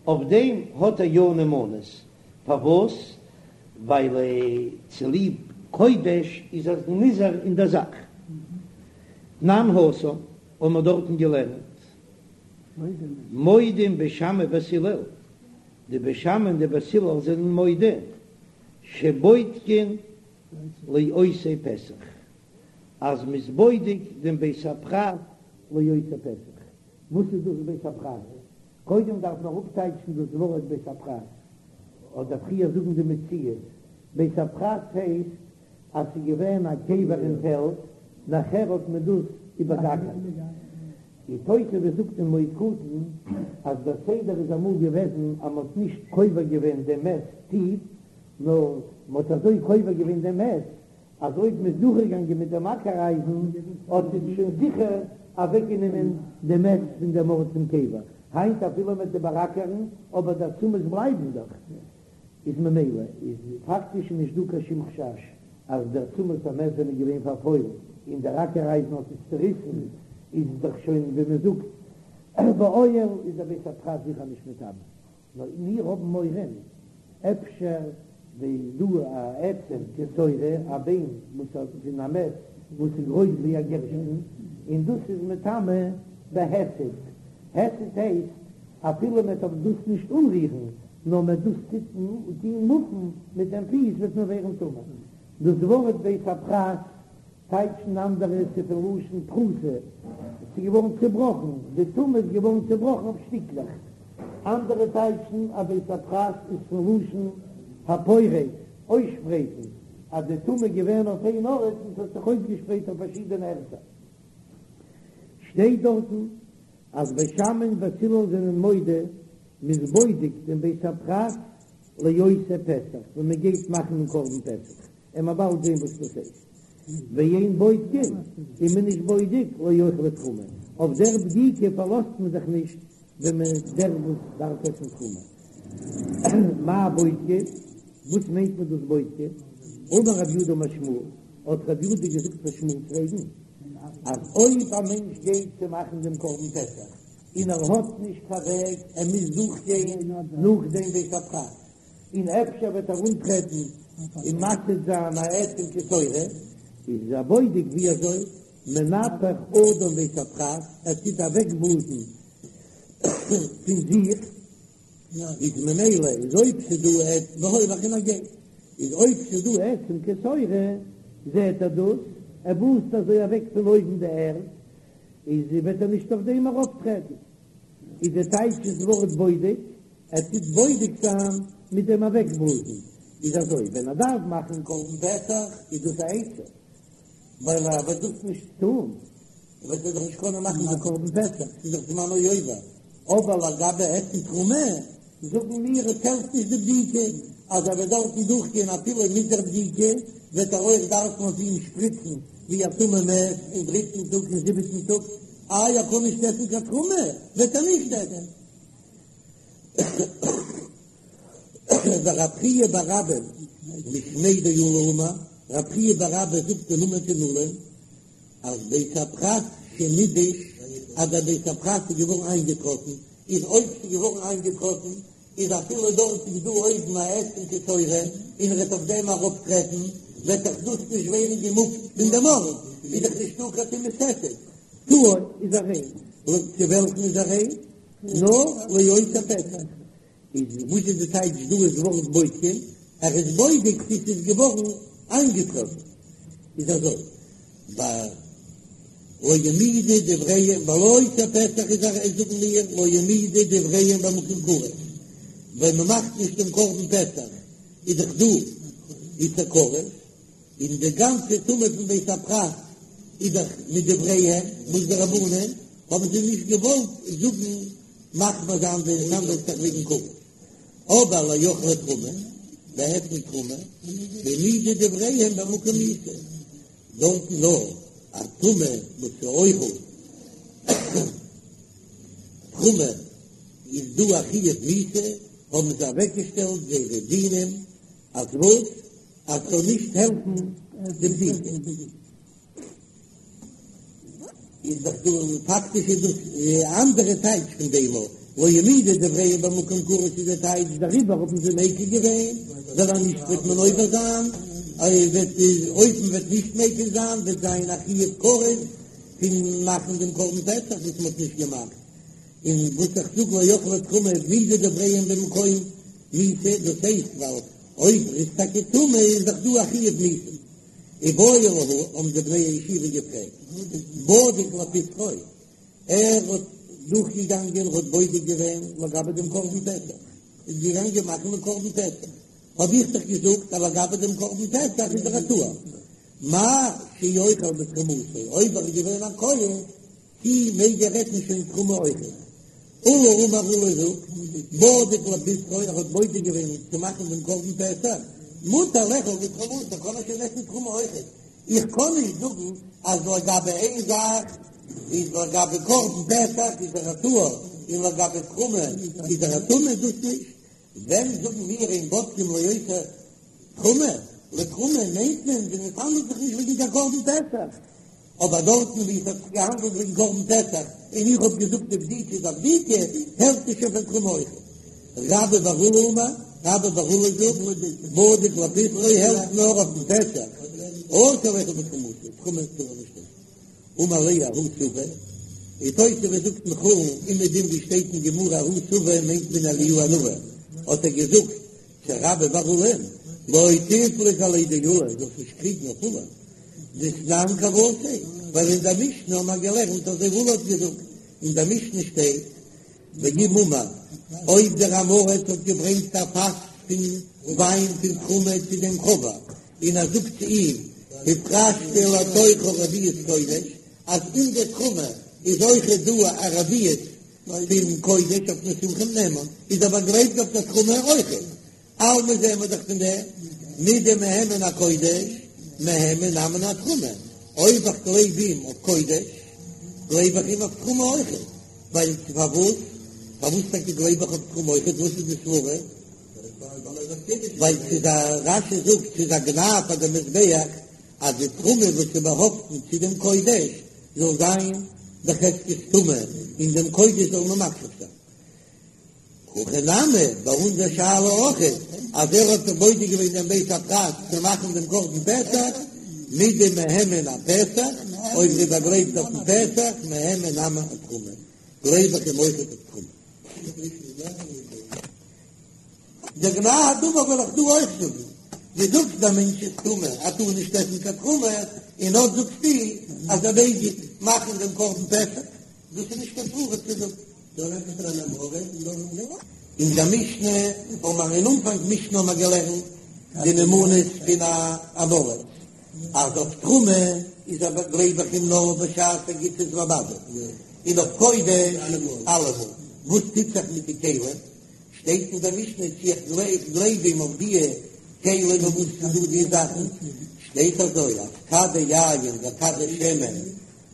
אויף דעם האט ער יא נאמנות, פארוואס? ווייל צוליב קודש איז ער נזהר אין דער זאך. תנן התם, האבן מיר דארטן געלערנט, מודים בית שמאי ובית הלל, די בית שמאי און די בית הלל זענען מודה שבודקין לעושי פסח, אז מ'איז בודק דעם בית הפרס לעושי פסח. וואס איז דאס בית הפרס? קודם דארף מען אפטייטשן דאס ווארט בית הפרס, אדער פריער זאגן די מציאות. בית הפרס הייסט אז ס'איז געווען א קבר אין פעלד, נאכער האט מען דאס איבערגעאקערט. די תוספות זאגט אין מועד קטן אז דער סדר איז אמאל געוועזן אז מ'האט נישט קובר געווען דעם מת טיף, נאר מ'האט אזוי קובר געווען דעם מת אז אויב מ'איז דורכגעגאנגען מיט דעם אקער אייזן האט עס שוין זיכער אוועקגענומען דעם מת פון דעם ארט פון קבר. היינט אפילו מ'וועט איבעראקערן אבער די עצמות בלייבן דאך. איז ממילא איז פאקטיש נישט דא קיין שום חשש אז די עצמות המת זענען געווען פארפוילט און דער אקער אייזן האט עס צוריסן, איז דאך שוין ווי מען זאגט באוהל איז דער בית הפרס זיכער נישט מטמא, נאר מיר האבן מורא אפשר איז דא א עצם כשעורה א ביין וואס האט פון א מת וואס איז גרויס ווי א גערשטן און דאס איז מטמא בהיסט, היסט הייסט אפילו מען וועט אויף דאס נישט אנרירן נאר מען דאס טוט טוהן מופן מיט דעם פיס וועט מען ווערן טמא. דאס ווארט בית הפרס טייטשן אנדערע ס'איז פון לשון פרוסה, עס איז געווארן צעבראכן, די טומאה איז געווארן צעבראכן אויף שטיקלעך. אנדערע טייטשן אז בית הפרס איז פון לשון הפורס, אויסשפרייטן, אז די טומאה איז געווען אויף איין ארט און עס האט זיך אויסגעשפרייט אויף פארשידענע ערטער. שטייט דארטן אז בית שמאי און בית הלל זענען מודה מ'איז בודק דעם בית הפרס לעושי פסח ווען מען גייט מאכן דעם קרבן פסח, און מ'וועט באלד זען וואס דאס הייסט ואין בודקין, איז מען נישט בודק לאוכלי תרומה, אויף דער בדיקה פארלאזט מען זיך נישט ווען מען דער וואס דארף עסן תרומה. מאי בודקין? וואס מיינט מען דאס בודקין? אמר רב יהודה אמר שמואל, האט רב יהודה געזאגט פון שמואל'ס וועגן, אז אויב א מענטש גייט צו מאכן דעם קרבן פסח און ער האט נישט קיין וועג, ער מוז דורכגיין נאך דעם בית הפרס, און אפשר וועט ער אנטרעטן און מסיט זיין א עצם כשעורה, איז ער בודק ווי אזוי מנפח אדם בית הפרס, ער טוט אוועקבלאזן פון זיך. איז ממילא איז אויב ס'דא עצם והולך און ער גייט, איז אויב ס'דא עצם כשעורה זעהט ער דאס, ער בלאזט אזוי אוועק פון אויבן די ערד, איז וועט ער נישט אויף דעם ארויפטרעטן. איז די טייטש איז ווארט בודק, ער טוט בודק זיין מיט דעם אוועקבלאזן, איז אזוי ווען ער דארף מאכן קרבן פסח איז דאס א עצה, ווייל ער וועט דאס נישט טון וועט ער דאך נישט קענען מאכן קיין קרבן פסח, ס'איז דאך זמנו עובר, אבער לגבי עסן תרומה, זאגן מיר עס העלפט נישט די בדיקה, אז ער וועט דארטן דורכגיין אפילו מיט דער בדיקה, וועט ער אויך דארפן אויף אים שפריצן ווי א טמא מת אין דריטן טאג און זיבעטן טאג, איי ער קען נישט עסן קיין תרומה, וועט ער נישט עסן. ורב חייא בר אבא משמיה דעולא אמר, רב חייא בר אבא זאגט אין נאמען פון עולא, אז בית הפרס שנידש, אז דער בית הפרס איז געווארן איינגעטראטן, איז אויב ס'איז געווארן איינגעטראטן, איז אפילו דארט איז דא אויבן א עצם כשעורה, און ער וועט אויף דעם ארויפטרעטן, וועט דאך דאס נישט ווערן געמופט פון דעם ארט, איז דאך נישטא קיין טומאת היסט. טהור איז ער ריין. צו וועלכן איז ער ריין? נאר לעושי פסח. איז וואס איז די טייטש דא איז ווארט בודקין? ער איז בודק צו ס'איז געווארן איינגעטראטן. איז אזוי ביי לא העמידו דבריהם ביי לעושי פסח איז ער זאגן מיר לא העמידו דבריהם במקום כרת ווען מ'מאכט נישט דעם קרבן פסח איז דאך דא איסור כרת און די גאנצע טומאה פון בית הפרס איז דאך מדבריהם וואס די רבנן האבן זיי נישט געוואלט זאגן מחמיר זיין ווען עס האנדלט זיך וועגן כרת, אבער לאוכלי תרומה, ביי עסן תרומה, העמידו דבריהם במקום מיתה, דארטן נאר א טומאה וואס איז אוכל תרומה איז דא א חיוב מיתה, האבן זיי אוועקגעשטעלט זייערע דינים אז וואס? אז ס'זאל נישט העלפן די בדיקה. איז דאך דא פאקטיש איז דאס אנדערע טייטש פון דעם לא העמידו דבריהם במקום כרת איז די טייטש דעריבער האבן זיי מיקל געווען ווייל אז נישט וועט מען עובר זיין אויב וועט אויב מען וועט נישט מיקל זיין וועט זיין א חיוב כרת. פון מאכן דעם קרבן פסח וואס מ'האט נישט געמאכט, און וואס איך זאג לא אכלה תרומה מידי דבריהם במקום מיתה, דאס הייסט ווייל אויב ער איז טאקע טמא איז דאך דא א חיוב מיתה. איבעיא להו האבן די בני הישיבה געפרעגט, בדק לפסחו, ער האט דורכגעגאנגען האט בודק געווען לגבי דעם קרבן פסח, איז געגאנגען מאכן דעם קרבן פסח, האב איך דאך געזאגט אז לגבי דעם קרבן פסח איז ער א טהור, מהו שאוכל בתרומתו, אויב ער איז געווען א כהן, צי מעג ער עסן שוין תרומה אויכעט? עולא אמר עולא זאגט, בדק לפסחו, ער האט בודק געווען צו מאכן דעם קרבן פסח, מותר לאכול בתרומתו, קען ער שוין עסן תרומה אויכעט, איך קען נישט זאגן אז לגבי איין זאך איז לגבי קרבן פסח איז ער א טהור און לגבי תרומה איז ער א טמא, דאס נישט. ווען זאגן מיר אין בודקין לאותה תרומה, לתרומה מיינט מען ווען עס האנדלט זיך נישט וועגן קיין קרבן פסח, אבער דארטן ווי עס האט זיך געהאנדלט וועגן קרבן פסח און איך האב געזאגט די בדיקה איז א בדיקה, העלפט עס שוין פאר תרומה אויך. רבה בר עולא אמר, רבה בר עולא זאגט, בדק לפסחו העלפט נאר אויפן פסח, אסור לאכול בתרומתו, תרומה טאר ער נישט עסן. אמר ליה ההוא סבא, און תוספות זאגט אין חולין אומעדום ווי שטייט אין גמרא ההוא סבא מיינט מען אליהו הנביא, האט ער געזאגט צו רבה בר עולא, לא תפלוג עליה דעולא, זאלסט נישט קריגן אויף עולא, דתנן כוותיה, ווייל אין דער משנה האט מען געלערנט אזוי ווי עולא האט געזאגט, אין דער משנה שטייט, ואם אמר, אויב דער עם הארץ האט געברענגט א פאס פון וויין פון תרומה צו דעם חבר, און ער זאגט צו אים, הפרשתי לתוכה רביעית קודש, אז אין די תרומה איז אויכעט דא א רביעית פון קודש אויף נסכים נאמן, איז ער באגלייבט אויף דער תרומה אויכעט. אלמא זעען מיר דאך פון דעם, מדמהימן אקודש, מהימן נמי אתרומה, אויב איך גלייב אים אויף קודש, גלייב איך אים אויף תרומה אויכעט, ווייל פארוואס? פארוואס טאקע גלייב איך אויף תרומה אויכעט? וואס איז די סברה? ווייל ס'איז א, רש"י זאגט ס'איז א גנאי פאר דעם מזבח אז די תרומה וואס איז באהאפטן צו דעם קודש זאל זיין בחזקת טומאה און דעם קודש זאל מען מקריב זיין. הכא נמי, ביי אונזער שאלה אויך, אז ער האט זיך בודק געווען דעם בית הפרס צו מאכן דעם קרבן פסח, מדמהימן אפסח, אויב ער איז באגלייבט אויפן פסח, מהימן נמי אתרומה, גלייב איך אים אויך אויף תרומה. דגנאי הדבר וועל איך דא אויך זאגן, דו זאגסט דער מענטש איז טמא, ער טאר נישט עסן קיין תרומה, און אט זאגסטו אז ער מעג מאכן דעם קרבן פסח, דאס איז נישט קיין סברא צו זאגן. אין דער משנה האבן מיר אין אנפאנג משנה האבן מיר געלערנט די נאמנות פון א עם הארץ אז אויף תרומה איז ער גלייב איך אים נאר בשעת הגיתות והבדים און אויף קודש אלעמאל. וואס טוט זיך מיט די כלים? שטייט אין דער משנה צו איך גלייב אים אויף די כלים אויף וואס ס'איז דא די זאכן? שטייט אזוי אז כדי יין וכדי שמן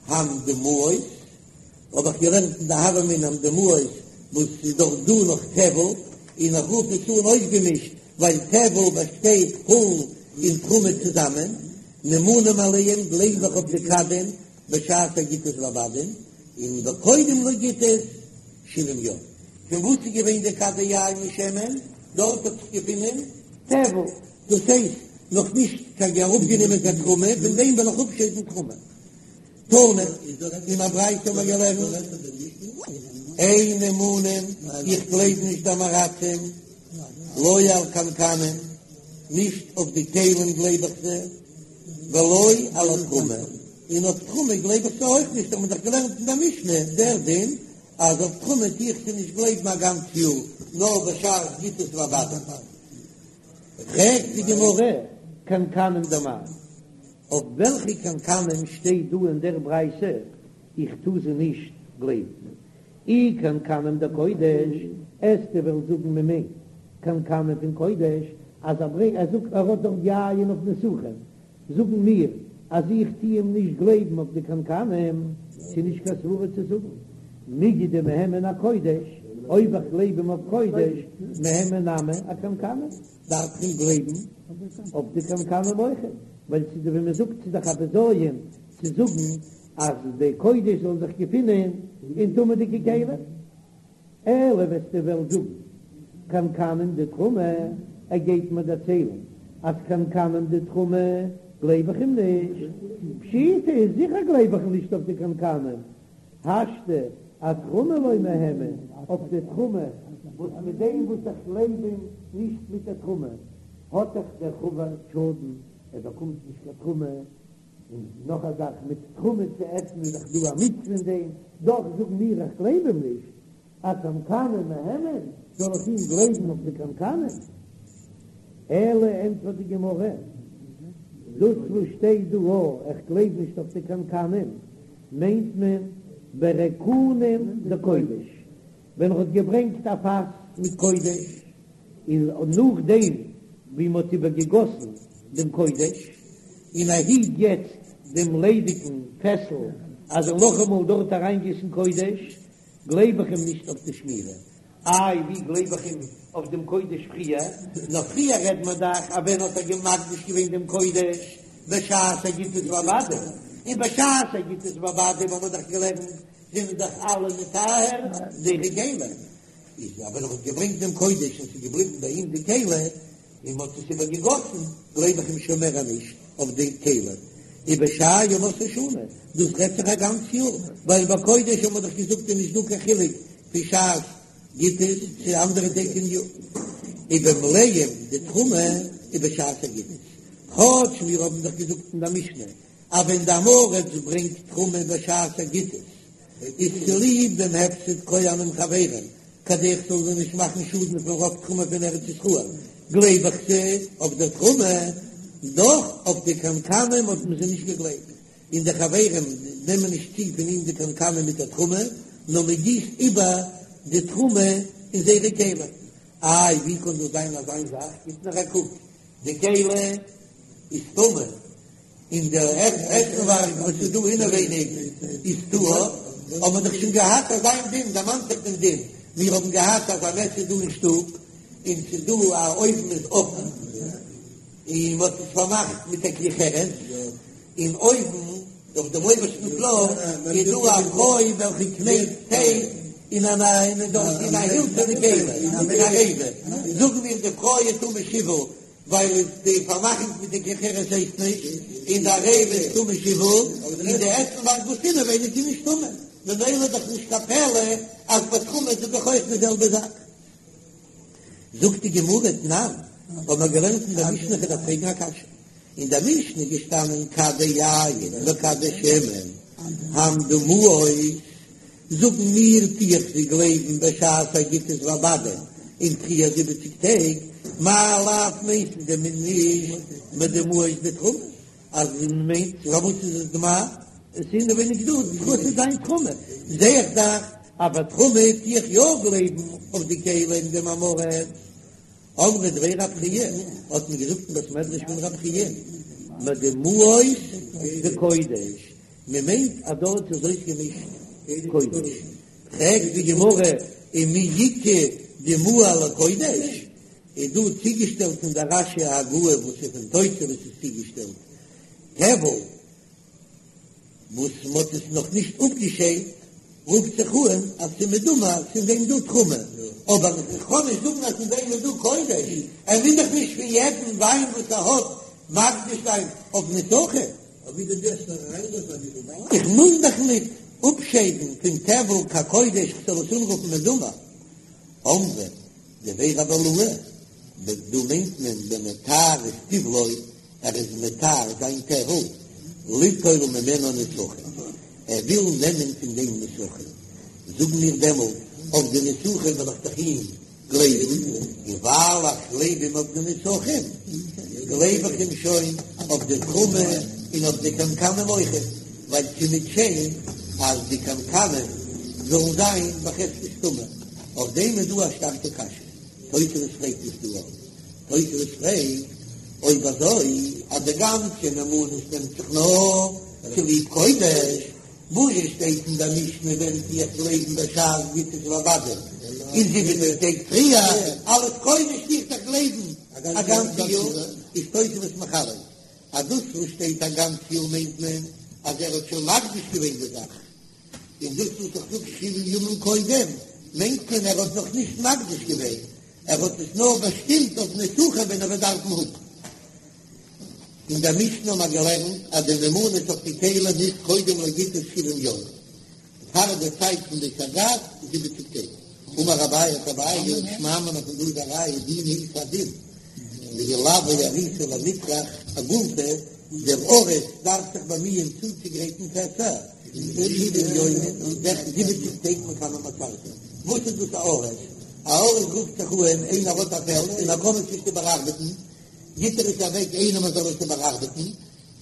המדומעות האב איך געלערנט אין די הוה אמינא המדומעות וואס ס'איז דאך דא נאך טבל, און איך רוף עס אן אויסגעמישט ווייל טבל באשטייט חולין און תרומה צוזאמען, נאמנים עליהם גלייב איך אויף די כדים בשעת הגיתות והבדים, און וקודם לגיתות שבעים יום. פון וואס איז געווען די כדי יין און שמן? דארט האט זיך געפונען טבל, דאס הייסט נאך נישט קיין אראפגענומען קיין תרומה, פון דעם וועל איך אפשיידן תרומה. תנא, אין א ברייתא האבן מיר געלערנט, אין נאמנים, איך גלייב נישט די עם הארצים, לא על קנקנים, נישט אויף די כלים גלייב איך זיי, ולא על התרומה, און אויף תרומה גלייב איך זיי אויך נישט, האבן מיר דאך געלערנט אין דער משנה דער דין, אז אויף תרומה טו איך זיי נישט גלייבן א גאנץ יאר, נאר בשעת גיתות והבדים. פרעגט די גמרא, קנקנים דמאי? אויף וועלכע קנקנים שטייט דא אין דער ברייתא איך טאר זיי נישט גלייבן? אי קנקנים דקודש, עסטו וועלן זאגן מען מיינט קנקנים פון קודש, אז ער ברענגט ער זאגט ער האט דארט יין אויף נסכים, זאגן מיר אז איך טו אים נישט גלייבן אויף די קנקנים, ס'איז נישט קיין סברה צו זאגן מיגו דמהימן אקודש, אויב איך גלייב אים אויף קודש, מהימן נמי אקנקנים. דארף איך אים גלייבן אויף די קנקנים אויכעט, ווייל ס'איז ווי מ'זאגט ס'איז דאך א בזיון צו זאגן אז די קודש זאל זיך געפינען אין טמא'דיגע כלים. אלא וועסטו וועלן זאגן קנקנים דתרומה, ער גייט מיר דערציילן אז קנקנים דתרומה. גלייב איך אים נישט. פשיטא איז זיכער גלייב איך אים נישט אויף די קנקנים. השתא אתרומה לא מהימן, אויף די תרומה וואס מיט דעם וואס איך גלייב אים נישט מיט די תרומה האט דאך דער חבר שאדן, ער באקומט נישט קיין תרומה, און נאך א זאך מיט תרומה צו עסן איז דאך דא א מצוה אין דעם, דאך זאגן מיר איך גלייב אים נישט, אקנקנים מהימן, זאל איך אים גלייבן אויף די קנקנים? אלא ענטפערט די גמרא, דאס וואס שטייט דא א איך גלייב נישט אויף די קנקנים, מיינט מען ברקנים דקודש, ווען ער האט געברענגט א פאס מיט קודש, און נאכדעם ווי מען האט איבער געגאסן דעם קודש, און ער היט יעצט דעם ליידיגן פעסל אז ער זאל נאכאמאל דארט אריינגיסן קודש, גלייב איך אים נישט אויף די שמירה. איי ווי גלייב איך אים אויף דעם קודש פריער? נאר פריער רעדט מען דאך אז ווען האט ער מקדיש געווען דעם קודש? בשעת הגיתות והבדים, און בשעת הגיתות והבדים האבן מיר דאך געלערנט זענען דאך אלע מטהר זייערע כלים, איז אבער ער האט געברענגט דעם קודש און ס'איז געבליבן ביי אים די כלי, און מ'האט עס איבער געגאסן, גלייב איך אים שוין מער נישט אויף די כלי. ובשאר ימות השנה, דאס רעדט זיך א גאנץ יאר, ווייל ביי קודש האט מען דאך געזאגט איז נישט דא קיין חילוק פון שעת גיתות צו אנדערע טעג אין יאר. ובמלאים דתרומה ובשעת הגיתות, כאטש מיר האבן דאך געזאגט אין דער משנה אז ווען דער עם הארץ ברענגט תרומה בשעת הגיתות איז צוליב דעם הפסד כהנים חברים כדי איך זאל זיי נישט מאכן שאדן פון רוב תרומה פון ארץ ישראל, גלייב איך זיי אויף דער תרומה, דאך אויף די קנקנים האט מען זיי נישט געגלייבט, און די חברים נעמען נישט צו פון אים די קנקנים מיט דער תרומה, נאר מען גיסט איבער די תרומה אין זייערע כלים. איי ווי קען דאס זיין אזא זאך? גיט נאר א קוק, די כלי איז טמא, און דער עסנווארג וואס איז דא אינעווייניג איז טהור, האבן מיר דאך שוין געהאט אזא דין, דערמאנט זיך דעם דין, מיר האבן געהאט אז א מת איז דא אין שטוב, און ס'איז דא א אויוון איז אפן, און מ'האט עס פארמאכט מיט א כלי חרס, און אויבן אויף דעם אויבערשטן פלאר איז דא א פרוי וועלכע קנעט טייג אין א אין א הילצערנע כלי, אין אן עריבה, זאגן מיר די פרוי איז טמא שבעה ווייל עס די פארמאכונג מיט די כלי חרס הייסט נישט, און די עריבה איז טמא שבעה, און די עסנווארג וואס אינעווייניג איז נישט טמא, ממילא איז דאך נישט קיין פלא אז ביי תרומה איז דאך אויך די זעלבע זאך. זאגט די גמרא תנן, האבן מיר געלערנט אין דער משנה כ'דארף פרעגן א קשיא, אין דער משנה איז געשטאנען כדי יין וכדי שמן המדומעות, זאגן מיר טו איך זיי גלייבן בשעת הגיתות והבדים און פריער זיבעציג טעג, מאי לאו מיינסטו דען נישט מדומעות דתרומה אז מ'מיינט פארוואס איז עס דמע עס איז אינעווייניג דא וואס איז זיין תרומה זע איך דאך אז ביי תרומה טו איך יא גלייבן אויף די כלים דעם עם הארץ אמרי דבי רב חייא האט מען געזאגט אין בית מדרש פון רב חייא מדומעות דקודש מען מיינט אז דארט איז אויסגעמישט קודש, פרעגט די גמרא ומי איכא דימוע לקודש, איז דא צוגעשטעלט אין די רש"י א הגהה וואס איז פון תוספות איז צוגעשטעלט טבל וואס מען האט עס נאך נישט אפגעשיידט, רופט זיך אן אז ס'איז מדומע ס'איז אין דעם דא תרומה, אבער איך קען נישט זאגן אז אין דעם איז דא קודש, ער מוז דאך נישט פון יעדן וויין וואס ער האט מקדיש זיין אויף נסכים. איך מוז דאך ניט אפשיידן פון טבל קיין קודש כ'זאל עס אנרופן מדומע. אמרי דבי רבי אילעאי, דא מיינט מען במטהר את טבלו, ער איז מטהר זיין טבל, ליטול ממנו נסכים, ער וויל נעמען פון דעם נסכים, זאגן מיר דעמאלט אויף די נסכים וועל איך דאך אים גלייבן, און ווייל איך גלייב אים אויף די נסכים, גלייב איך אים שוין אויף די תרומה און אויף די קנקנים אויכעט, ווייל ס'איז ניט שיין אז די קנקנים זאלן זיין בחזקת טומאה. אויף דעם איז דא א שטארקע קשיא, תוספות פרעגט עס דא אויף, תוספות פרעגט אויב אזוי אז די גאנצע נאמנות נעמט זיך נאר צוליב קודש, וואס שטייט אין דער משנה ווען טו איך גלייבן בשעת גיתות והבדים און זיבעציג טעג פריער, אלעס קודש טו איך דאך גלייבן א גאנצע יאר, איז תוספות מחלק אז דאס וואס שטייט א גאנץ יאר מיינט מען אז ער האט שוין מקדיש געווען די זאך, און דאס וואס איך זאג שבעים ימים קודם מיינט מען ער האט נאך נישט מקדיש געווען, ער האט עס נאר באשטימט אויף נסכים ווען ער וועט דארפן האבן. אין דער משנה האבן מיר געלערנט אז די נאמנות אויף די כלים איז קודם לגיתות שבעים יום, פאר די צייט פון בית הגת זיבעציג טעג. אמר אביי האט אביי געזאגט שמע מינה פון דא איז א ראיה דינא הוא ס'איז א דין דילוה אריסא למיטרח אגולפי, דער אריס דארף זיך באמיען צוצוגרייטן פעסער שבעים יומין זיבעציג טעג מקמי מעצרתא. וואס איז דאס א אריס? א אריס רופט זיך אהן איינער האט א פעלד און ער קען עס נישט איבערארבעטן, גיט ער עס אוועק איינעם ער זאל עס איבערארבעטן,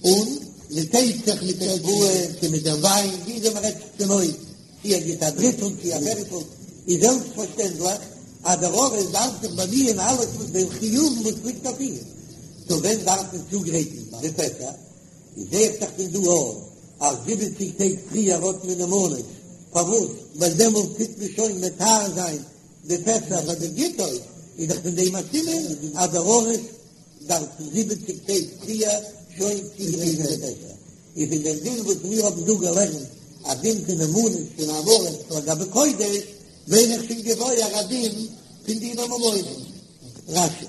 און מען טיילט זיך מיט דער תבואה צו מיט דעם וויין, וויאזוי מען רעדט זיך צונויף, צו ער גיט א דריטל צו א פערטל, איז זעלבסט פארשטענדליך אז דער אריס דארף זיך באמיען אלעס וואס די חיובים וואס ליגט אויף אים, טא ווען דארף מען צוגרייטן די פעסער? איז זעה איך דאך פון דא אן אז זיבעציג טעג פריער האט מען נאמנות, פארוואס? ווייל דעמאלט טוט מען שוין מטהר זיין די פעסער פאר די גיתות, איז דאך פון דעם א סימן אז דער אריס דארף זיבעציג טעג פריער שוין צוגרייטן די פעסער, און פון דעם דין וואס מיר האבן דא געלערנט א דין פון נאמנות פון עם הארץ לגבי קודש, ווער איך שוין געוואויר א דין פון דיני ממונות. רש"י.